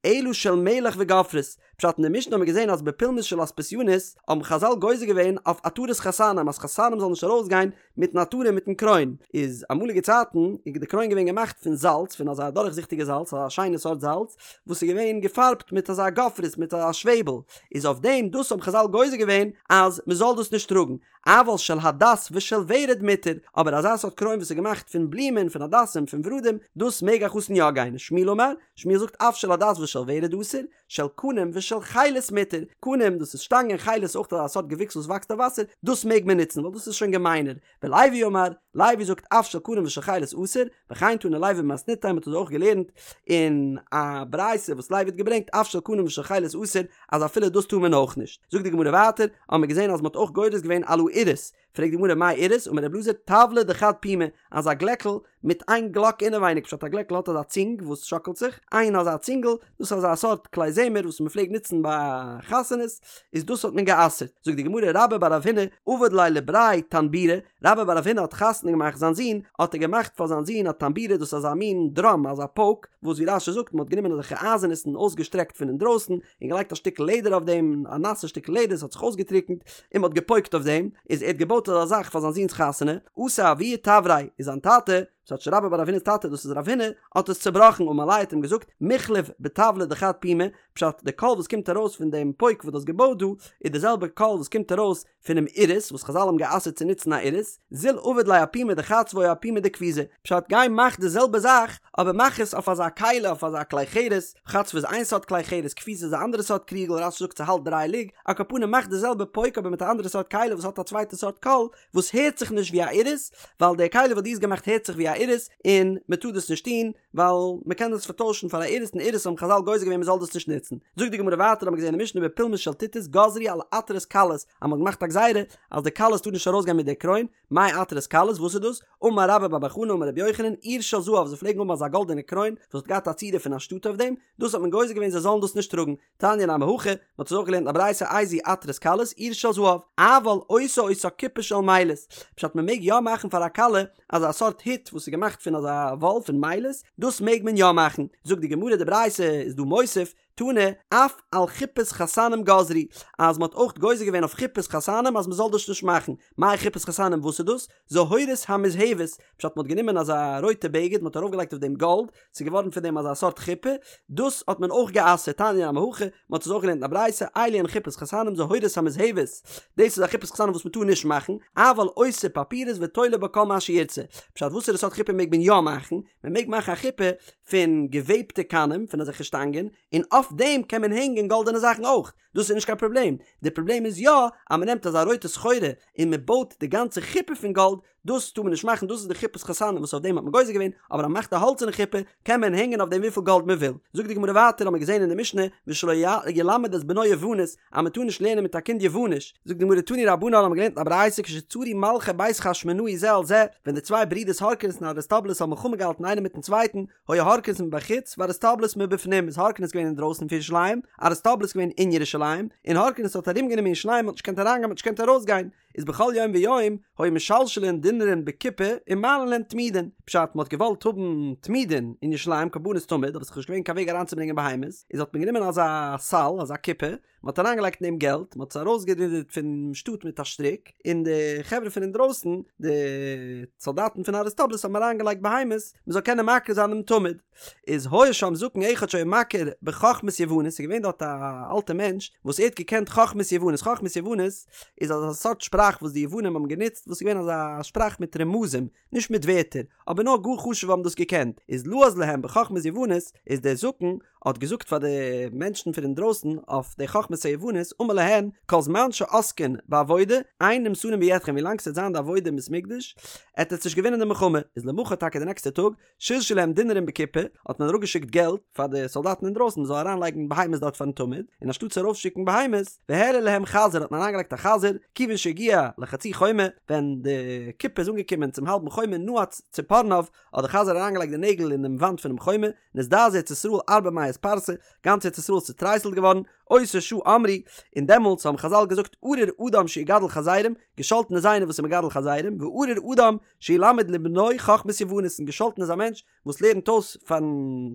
אלא של מלח וגופרית, פשט אין די משנה האט מען געזען אז בפולמוס של אספסיונוס האבן חזל גוזר געווען אויף עטרת חתנים אז חתנים זאלן נישט ארויסגיין מיטן עטרה מיטן קרוין, איז אמאליגע צייטן איז די קרוין געווען געמאכט פון זאלץ פון אזא דורכזיכטיגע זאלץ אזא שיינע סארט זאלץ וואס איז געווען געפארבט מיט אזא גופרית מיט א שוועבל, איז אויף דעם דאס האבן חזל גוזר געווען אז מען זאל דאס נישט טראגן, אבל של הדס ושל ורד מותר, אבער אזא סארט קרוין וואס איז געמאכט פון בלומען פון הדסים פון ורדים דאס מעג א חתן יא גיין, שמואל אמר, שמואל זאגט אף של הדס ושל ורד אסור, של קנים ושל חילת מותר, קנים דאס איז שטאנגען חילת אויך אזא סארט געוויקס וואס וואקסט אויף וואסער, דאס מעג מען נוצן ווייל דאס איז שוין געמיינער, ולוי אמר, לוי זאגט אף של קנים ושל חילת אסור, וכן תנא לוי במתניתא מען האט עס אויך געלערנט אין א ברייתא וואס לוי האט געברענגט אף של קנים ושל חילת אסור אז אפילו דאס טאר מען אויך נישט, זאגט די גמרא ווייטער, האבן מיר געזען אז מען האט אויך גורס געווען על האירוס, פרעגט די גמרא מאי אירוס, אמר רבי אלעזר טבלא דחד פומא, אזא גלעקל מיט איין גלאק אינעווייניג, פשט א גלעקל האט אזא צינג וואס שאקלט זיך, איין אזא צינגל, דאס איז אזא סארט כלי זמר וואס מען פלעגט נוצן ביי חתונות, איז דאס האט מען גע'אסר'ט, זאגט די גמרא רבה בר רב הונא עבד ליה לבריה טנבורא, רבה בר רב הונא האט חתונה געמאכט זיין זון, האט ער געמאכט פאר זיין זון א טנבורא דאס איז אזא מין דראם אזא פויק, וואס ווי רש"י זאגט מען האט גענומען אזעלכע אייזענעס און אויסגעשטרעקט פון אינדרויסן, און געלייגט א שטיקל לעדער אויף דעם, א נאסע שטיקל לעדער, עס האט זיך אויסגעטריקנט, און מען האט געפויקט אויף דעם, איז ער האט געבויט אזא זאך פאר זיין זון'ס חתונה, אתא אבוה תבריה, איז זיין טאטע, ס'טייטש רבה בר רב הונא'ס טאטע, דאס איז רב הונא, האט עס צובראכן, אמר ליה האט אים געזאגט, מיחלף בטבלא דחד פומא, פשט, די קול וואס קומט ארויס פון דעם פויק וואס דו האסט געבויט דא, איז די זעלבע קול וואס קומט ארויס פונעם אירוס וואס חזל האבן גע'אסר'ט צו נוצן א אירוס, זיל עביד ליה אפומא דחצבא או אפומא דכפיזא, פשט גיי מאך די זעלבע זאך אבער מאך עס אויף אזא כלי אויף אזא כלי חרס, חצבא איז איין סארט כלי חרס כפיזא איז א אנדערע סארט קריגל רש"י זאגט ס'האלט דריי לוג, על כל פנים מאך די זעלבע פויק אבער מיט א אנדערע סארט כלי וואס האט א צווייטע סארט קול וואס הערט זיך נישט ווי א אירוס, ווייל די כלי וואס דו האסט געמאכט הערט זיך ווי א. א אירוס, און מען טאר דאס נישט טון, ווייל מען קען דאס פארטוישן פאר א אירוס און אירוס האבן חזל גוזר געווען מען זאל דאס נישט נוצן. זאגט די גמרא ווייטער האבן מיר געזען אין משנה בפולמוס של טיטוס גזרו על עטרות כלות אז מען האט געמאכט א גזירה אז די כלות טאר נישט ארויסגיין מיט די קרוין, מאי עטרות כלות וואס איז דאס? אמר רבה בר בר חנה אמר רבי יוחנן עיר של זהב זיי פלעגן האבן אזא גאלדענע קרוין וואס האט געהאט א צורה פון א שטאט אויף דעם, דאס האט מען גוזר געווען זיי זאלן דאס נישט טראגן, תניא נמי הכי, מען האט עס אויך געלערנט אין א ברייתא איזוהי עטרת כלות עיר של זהב, אבל עושה אותה כיפה של מילת, פשט מען מעג יא מאכן פאר א כלה אזא סארט הוט וואס איז געמאכט פון אזא וואל פון מילת, דאס מעג מען יא מאכן, זאגט די גמרא די ברייתא איז דא מוסיף, תנא, אף על חופת חתנים גזרו, אז מען האט אויך גוזר געווען אויף חופת חתנים אז מען זאל דאס נישט מאכן, מאי חופת חתנים וואס איז דאס? זהורית המוזהבת, פשט מען האט גענומען אזא רויטע בגד מען האט ארויף געלייגט אויף דעם גאלד, ס'איז געווארן פון דעם אזא סארט חופה, דאס האט מען אויך גע'אסר'ט, תניא נמי הכי, מען האט עס אויך געלערנט אין א ברייתא, אלו הן חופות חתנים זהורית המוזהבת, דאס איז א חופת חתנים וואס מען טאר נישט מאכן, אבל עושה פפירית ותולה בה כל מה שירצה, פשט וואסערע סארט חופה מעג מען יא מאכן? מען מעג מאכן א חופה פון געוועבטע קנים, פון אזעלכע שטאנגען, און אויף דעם קען מען הענגען גאלדענע זאכן אויך, דאס איז נישט קיין פראבלעם, די פראבלעם איז יא אז מען נעמט אזא רויטע סחורה און מען בויט די גאנצע חופה פון גאלד, דאס טאר מען נישט מאכן, דאס איז די חופת חתנים וואס אויף דעם האט מען גוזר געווען, אבער אז מען מאכט א האלצערנע חופה קען מען הענגען אויף דעם וויפיל גאלד מען וויל. זאגט די גמרא ווייטער האט מען געזען אין די משנה ושלא ילמד את בנו יוונית אז מען טאר נישט לערנען מיט א קינד יווניש, זאגט די גמרא תנו רבנן האט מען געלערנט אין א ברייתא כשצרו מלכי בית חשמונאי זה על זה, ווען די צוויי ברידערס הורקנוס און אריסטובולוס האבן מלחמה געהאלטן איינער מיטן צווייטן, היה הורקנוס מבחוץ ואריסטובולוס מבפנים איז הורקנוס געווען אינדרויסן פון ירושלים, אריסטובולוס געווען אין ירושלים, און הורקנוס האט ארומגענומען ירושלים מ'האט נישט געקענט אריינגיין מ'האט נישט געקענט ארויסגיין, איז בכל יום ויום היו משלשלין דינרין בקופה ומעלין להם תמידין, פשט מ'האט געוואלט האבן תמידין אין ירושלים קרבנות תמיד אבער ס'איז נישט געווען קיין וועג אריינצוברענגען בהמות, איז האט מען גענומען אזא סל אזא קופה, מען האט אריינגעלייגט אין דעם געלט, מען האט עס ארויסגערודערט פון שטאט מיט א שטריק, און די חברה פון אינדרויסן, די סאלדאטן פון אריסטובולוס האבן אריינגעלייגט בהמות, מען זאל קענען מקריב זיין דעם תמיד. איז היה שם זקן אחד שהיה מכיר בחכמת יוונית, ס'איז געווען דארט א אלטע מענטש וואס ער האט געקענט חכמת יוונית, חכמת יוונית איז אזא סארט שפראך וואס די יוונים האבן גענוצט, וואס איז געווען אזא שפראך מיט רמזים, נישט מיט ווערטער, אבער נאר גאר חשוב'ע האבן דאס געקענט, איז לעז להם בחכמת יוונית, איז דער זקן האט געזאגט פאר די מענטשן פון אינדרויסן אויף די חכמת היוונית, אמר להן, כל זמן שעוסקין בעבודה, אין נמסרין בידכם ווילאנג ס'וועט זיין די עבודה אין בית מקדש, עט עטס נישט געווינען די מלחמה, איז למחר טאקע די נעקסטע טאג, שלשו להם דינרים בקופה, האט מען אראפגעשיקט געלט פאר די סאלדאטן אינדרויסן מען זאל אריינלייגן בהמות דארט פארן תמיד, און אנשטאט צו ארויפשיקן בהמות, והעלו להם חזיר האט מען אריינגעלייגט א חזיר, כיוון שהגיע לחצי חומה, ווען די קופה איז אנגעקומען צום האלבן חומה נעץ ציפורניו, האט די חזיר אריינגעלייגט די נעגל אין דעם וואנט פונעם חומה, נזדעזעה ארץ ישראל ארבע מאות פרסה, גאנץ ארץ ישראל איז צוטרייסלט געווארן, אותה שעה אמרו, און דעמאלטס האבן חזל געזאגט ארור אדם שיגדל חזירים, געשאלטן איז איינער וואס איז מגדל חזירים, וארור אדם שילמד לבנו חכמת יוונית און געשאלטן איז א מענטש וואס לערנט אויס פארן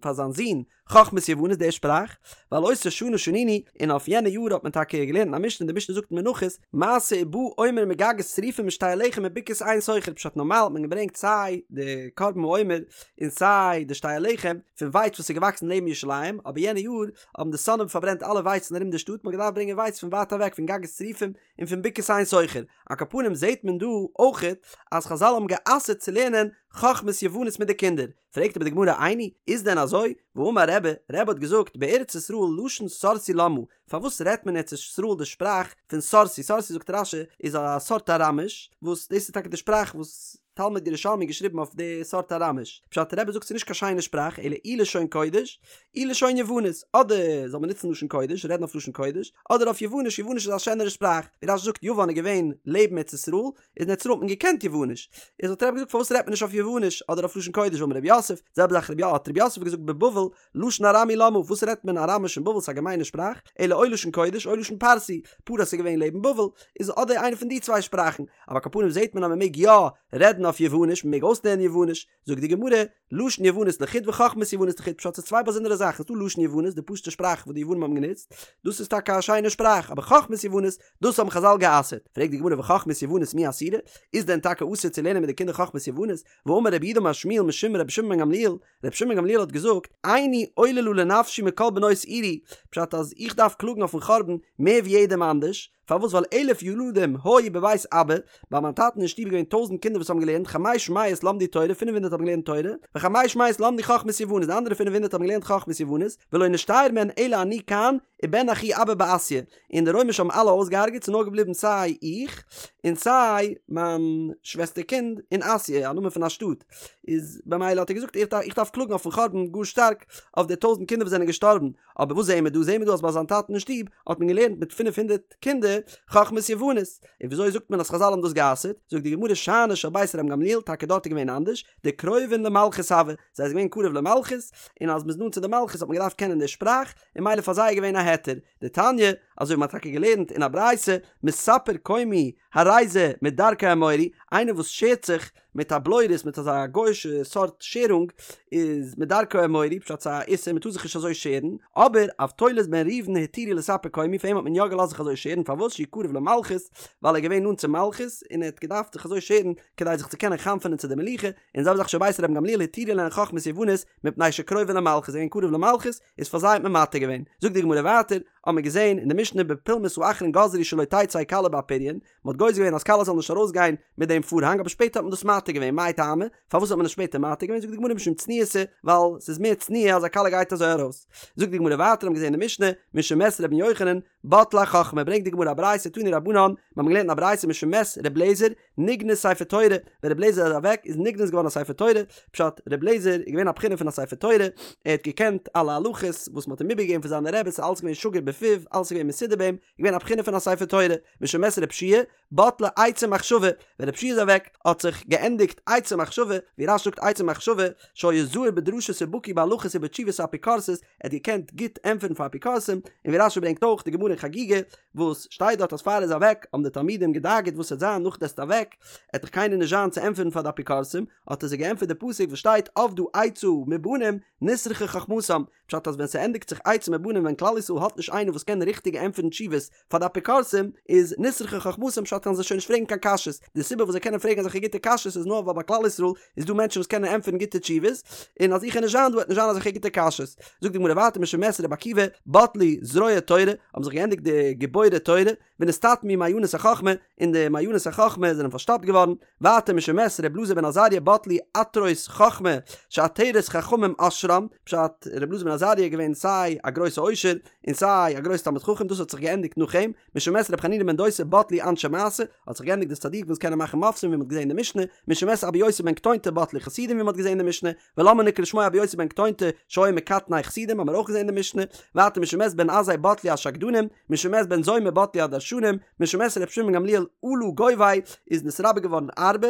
פאר זיין זון חכמת יוונית די שפראך, ועל אותה שנה שנינו, און אויף יענע יאר האט מען טאקע געלערנט א משנה, די משנה זאגט אין מנחות, מעשה ובא עומר מגגות צריפים משתי הלחם מבקעת עין סוכר, פשט נארמאל האט מען געברענגט סיי די קרבן העומר און סיי די שתי הלחם פון ווייץ וואס איז געוואקסן לעבן ירושלים, אבער יענע יאר האבן די שונאים פארברענט אלע ווייצן ארום די שטאט, מען האט געדארפט ברענגען ווייץ פון ווייט אוועק פון גגות צריפים און פון בקעת עין סוכר. על כל פנים זעהט מען דא אויכעט אז חזל האבן גע'אסר'ט צו לערנען חכמת יוונית מיט די קינדער. פרעגט אבער די גמרא איני, איז דען אזוי? והאמר רבי, רבי האט געזאגט, בארץ ישראל לשון סורסי למה, פארוואס רעדט מען אין ארץ ישראל די שפראך פון סורסי, סורסי זאגט רש"י איז א סארט אראמיש, וואס דאס איז טאקע די שפראך וואס תלמוד ירושלמי געשריבן אויף די סארט אראמיש, פשט רבי זאגט ס'איז נישט קיין שיינע שפראך אלא אי לשון קודש אי לשון יוונית, אדער זאל מען נוצן לשון קודש, רעדן אויף לשון קודש, אדער אויף יווניש, יווניש איז א שענערע שפראך, ווי רש"י זאגט יוון איז געווען לעבן ארץ ישראל, איז אין ארץ ישראל האט מען געקענט יווניש, איז האט רבי געזאגט פארוואס רעדט מען נישט אויף יווניש אדער אויף לשון קודש ואמר רב יוסף, זעלבע זאך רב האט רב יוסף געזאגט בבבל לשון ארמי למה, וואס רעדט מען אראמיש אין בבל ס'איז א געמיינע שפראך, אלא או לשון קודש או לשון פרסי, פרס איז געווען לעבן בבל, איז אדער איינע פון די צוויי שפראכן, אבער על כל פנים זעט מען אז מען מעג יא רעדן אויף יווניש, מען מעג אויסלערנען יווניש, זאגט די גמרא, לשון יוונית לחוד וחכמת יוונית לחוד, פשט ס'איז צוויי באזונדערע זאכן, ס'איז דא לשון יוונית, די פשוטע שפראך וואס די יוונים האבן גענוצט, דאס איז טאקע א שיינע שפראך, אבער חכמת יוונית, דאס האבן חזל גע'אסר'ט, פרעגט די גמרא וחכמת יוונית מי אסירא, איז דען טאקע אסור צו לערנען מיט די קינדער חכמת יוונית, והאמר רב יהודה אמר שמואל משום רבי שמעון בן גמליאל, רבי שמעון בן גמליאל האט געזאגט, עיני עוללה לנפשי מכל בנות עירי, פשט אז איך דארף קלאגן אויפן חורבן מער ווי יעדעם אנדערש, פארוואס ווייל אלף ילדים היו בבית אבא, ביי מיין טאטן אין שטוב איז געווען טויזענט קינדער וואס האבן געלערנט, חמש מאות למדו תורה, פינף הונדערט האבן געלערנט תורה, וחמש מאות למדו חכמת יוונית, די אנדערע פינף הונדערט האבן געלערנט חכמת יוונית, ולא נשתייר מהן אלא אני כאן, ובן אחי אבא בעסיא, און די רוימישע האבן אלע אויסגעהארגעט, ס'איז נאר געבליבן סיי איך, און סיי מיין שוועסטער קינד אין אסיא, א נאמען פון א שטאט, איז במילא האט ער געזאגט איך דארף קלאגן אויפן חורבן גאר שטארק, אויף די טויזענט קינדער וואס זענען געשטארבן, אבער וואס זעהן מיר דא? זעהן מיר דא אז ביי זיין טאטן אין שטוב האט מען געלערנט מיט פינף הונדערט קינדער חכמת יוונית, און וויאזוי זאגט מען אז חזל האבן דאס גע'אסר'ט? זאגט די גמרא שאני של בית רבן גמליאל, טאקע דארט איז געווען אנדערש, דקרובין למלכות הוו, זיי זענען געווען קרוב למלכות, און אז מ'איז נאנט צו די מלכות האט מען געדארפט קענען די שפראך, און מילא פאר זיי איז געווען א היתר. דתניא, אזוי ווי מ'האט טאקע געלערנט אין א ברייתא, מספר קומי הרי זה מדרכי האמורי, איינער וואס שערט זיך מיט א בלורית מיט אזא גוי'שע סארט שערונג איז מדרכי האמורי, פשט ס'איז א איסור מ'טאר זיך נישט אזוי שערן, אבער אבטולוס בן ראובן התירו לספר קומי פאר אים האט מען יא געלאזט זיך אזוי שערן פארוואס שהוא קרוב למלכות ווייל ער איז געווען נאנט צום מלכות און ער האט געדארפט זיך אזוי שערן כדי זיך צו קענען חנפ'ענען צו די מלוכה, און זעלבע זאך של בית רבן גמליאל התירו להן חכמת יוונית מפני שקרובין למלכות זיי זענען קרוב למלכות איז פאר זיי האט מען מתיר געווען. זאגט די גמרא ווייטער, האט מען געזען אין די משנה בפולמוס האחרון גזרו שלא תצא כלה באפריון, מען האט גוזר געווען אז כלה זאל נישט ארויסגיין מיט דעם פארהאנג אבער שפעטער האט מען דאס מתיר געווען, מאי טעמא? פארוואס האט מען עס שפעטער מתיר געווען? זאגט די גמרא משום צניעותא, ווייל ס'איז מער צניעה אז א כלה גייט אזוי ארויס. זאגט די גמרא ווייטער האט מען געזען אין די משנה, משמת רבן יוחנן, בטלה החכמה, ברענגט די גמרא א ברייתא תנו רבנן, מיר האבן געלערנט אין א ברייתא משמת ר' לעזער, נגנז ספר תורה, ווען ר' לעזער איז אוועק איז נגנז געווארן א ספר תורה, פשט, ר' לעזער איז געווען א בחינה פון א ספר תורה, ער האט געקענט אלע הלכות וואס מען האט אים איבערגעגעבן פון זיינע רעבעס, ס'איז אלעס געווען שגור בפיו, אלעס איז געווען מסודר ביי אים, געווען א בחינה פון א ספר תורה, משמת ר' יהושע בטלה עצה ומחשבה, ווען ר' יהושע איז אוועק האט זיך געענדיגט עצה ומחשבה, ווי רש"י זאגט עצה ומחשבה, שהיה זהיר בדרשות ובקי בהלכות ובתשובות האפיקורסות, ער האט געקענט גוט ענטפערן פאר אפיקורסים, און ווי רש"י ברענגט אויך די גמרא אין חגיגה, וואס שטייט דארט אז פאר ער איז אוועק האבן די תלמידים געדאגה'ט וואס וועט זיין נאך דו וועסט אוועק, עט דאך קיינער נישט זיין צו ענטפערן פאר די אפיקורסים, האט ער זיי געענטפערט די פסוק וואס שטייט אבדה עצה מבנים נסרחה חכמתם, פשט אז ווען ס'ענדיגט זיך עצה מבנים ווען כלל ישראל האט נישט איינער וואס קען ריכטיג ענטפערן תשובות פאר די אפיקורסים איז נסרחה חכמתם פשט קענען זיי שוין נישט פרעגן קיין קשיות די סיבה וואס זיי קענען פרעגן אזעלכע גוטע קשיות איז נאר ווייל ביי כלל ישראל איז דא מענטשן וואס קענען ענטפערן גוטע תשובות און אז איך וועל נישט זיין דא וועט נישט זיין אזעלכע גוטע קשיות זאגט די גמרא ווייטער משמת רבי עקיבא בטלו זרועי תורה האבן זיך געענדיגט די גיבורי תורה ונסתתמו מעיינות החכמה, און די מעיינות החכמה זענען פארשטאפט געווארן, ווייטער משמת ר' אלעזר בן עזריה בטלו עטרות חכמה שעטרת חכמים עשרם, פשט, ר' אלעזר בן עזריה איז געווען סיי א גרויסע עושר און סיי א גרויסע תלמיד חכם דאס האט זיך געענדיגט נאך אים, משמת ר' חנינא בן דוסא בטלו אנשי מעשה, האט זיך געענדיגט די צדיקים וואס קענען מאכן מופתים ווי מען האט געזען אין די משנה, משמת אבא יוסי בן קטונתא בטלו חסידים ווי מען האט געזען אין די משנה, ולמה נקרא שמו אבא יוסי בן קטונתא שהיה מקטני חסידים האבן מיר אויך געזען אין די משנה, ווייטער משמת בן עזאי בטלו השקדנים, משמת בן זומא בטלו הדרשנים, משמת ר' שמעון בן גמליאל עלה גובאי איז נתרבה געווארן ארבה,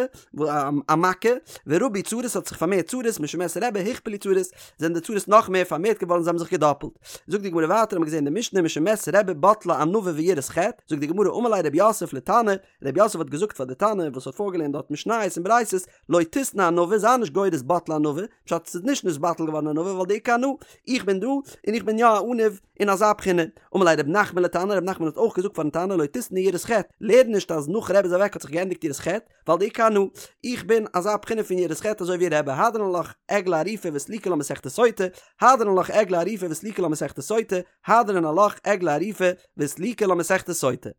א מכה, ורבו צרות האט זיך פארמערט צרות, משמת רבי הוכפלו צרות, זענען די צרות נאך מער פארמערט געווארן זיי האבן זיך געדאפלט. זאגט די גמרא ווייטער האבן מיר געזען אין די משנה משמת רבי בטלה ענווה ויראת חטא, זאגט די גמרא אמר ליה רב יוסף לתנא, רב יוסף האט געזאגט פאר די תנא וואס האט פארגעלערנט דארט משניות און ברייתות, לא תיתני ענווה, זיי נישט גורס בטלה ענווה, פשט ס'איז נישט נתבטל געווארן ענווה ווייל דאיכא אנא, איך בין דא און איך בין יא א עניו אין אזא בחינה. אמר ליה רב נחמן לתנא, רב נחמן האט אויך געזאגט פארן תנא לא תיתני יראת חטא, לערן נישט אז נאך רבי איז אוועק האט זיך געענדיגט יראת חטא, ווייל דאיכא אנא, איך בין אזא בחינה פון יראת חטא אזוי ווי רבי, הדרן עלך עגלה ערופה וסליקא לה מסכת סוטה, הדרן עלך עגלה ערופה וסליקא לה מסכת סוטה, הדרן עלך עגלה ערופה וסליקא לה מסכת סוטה.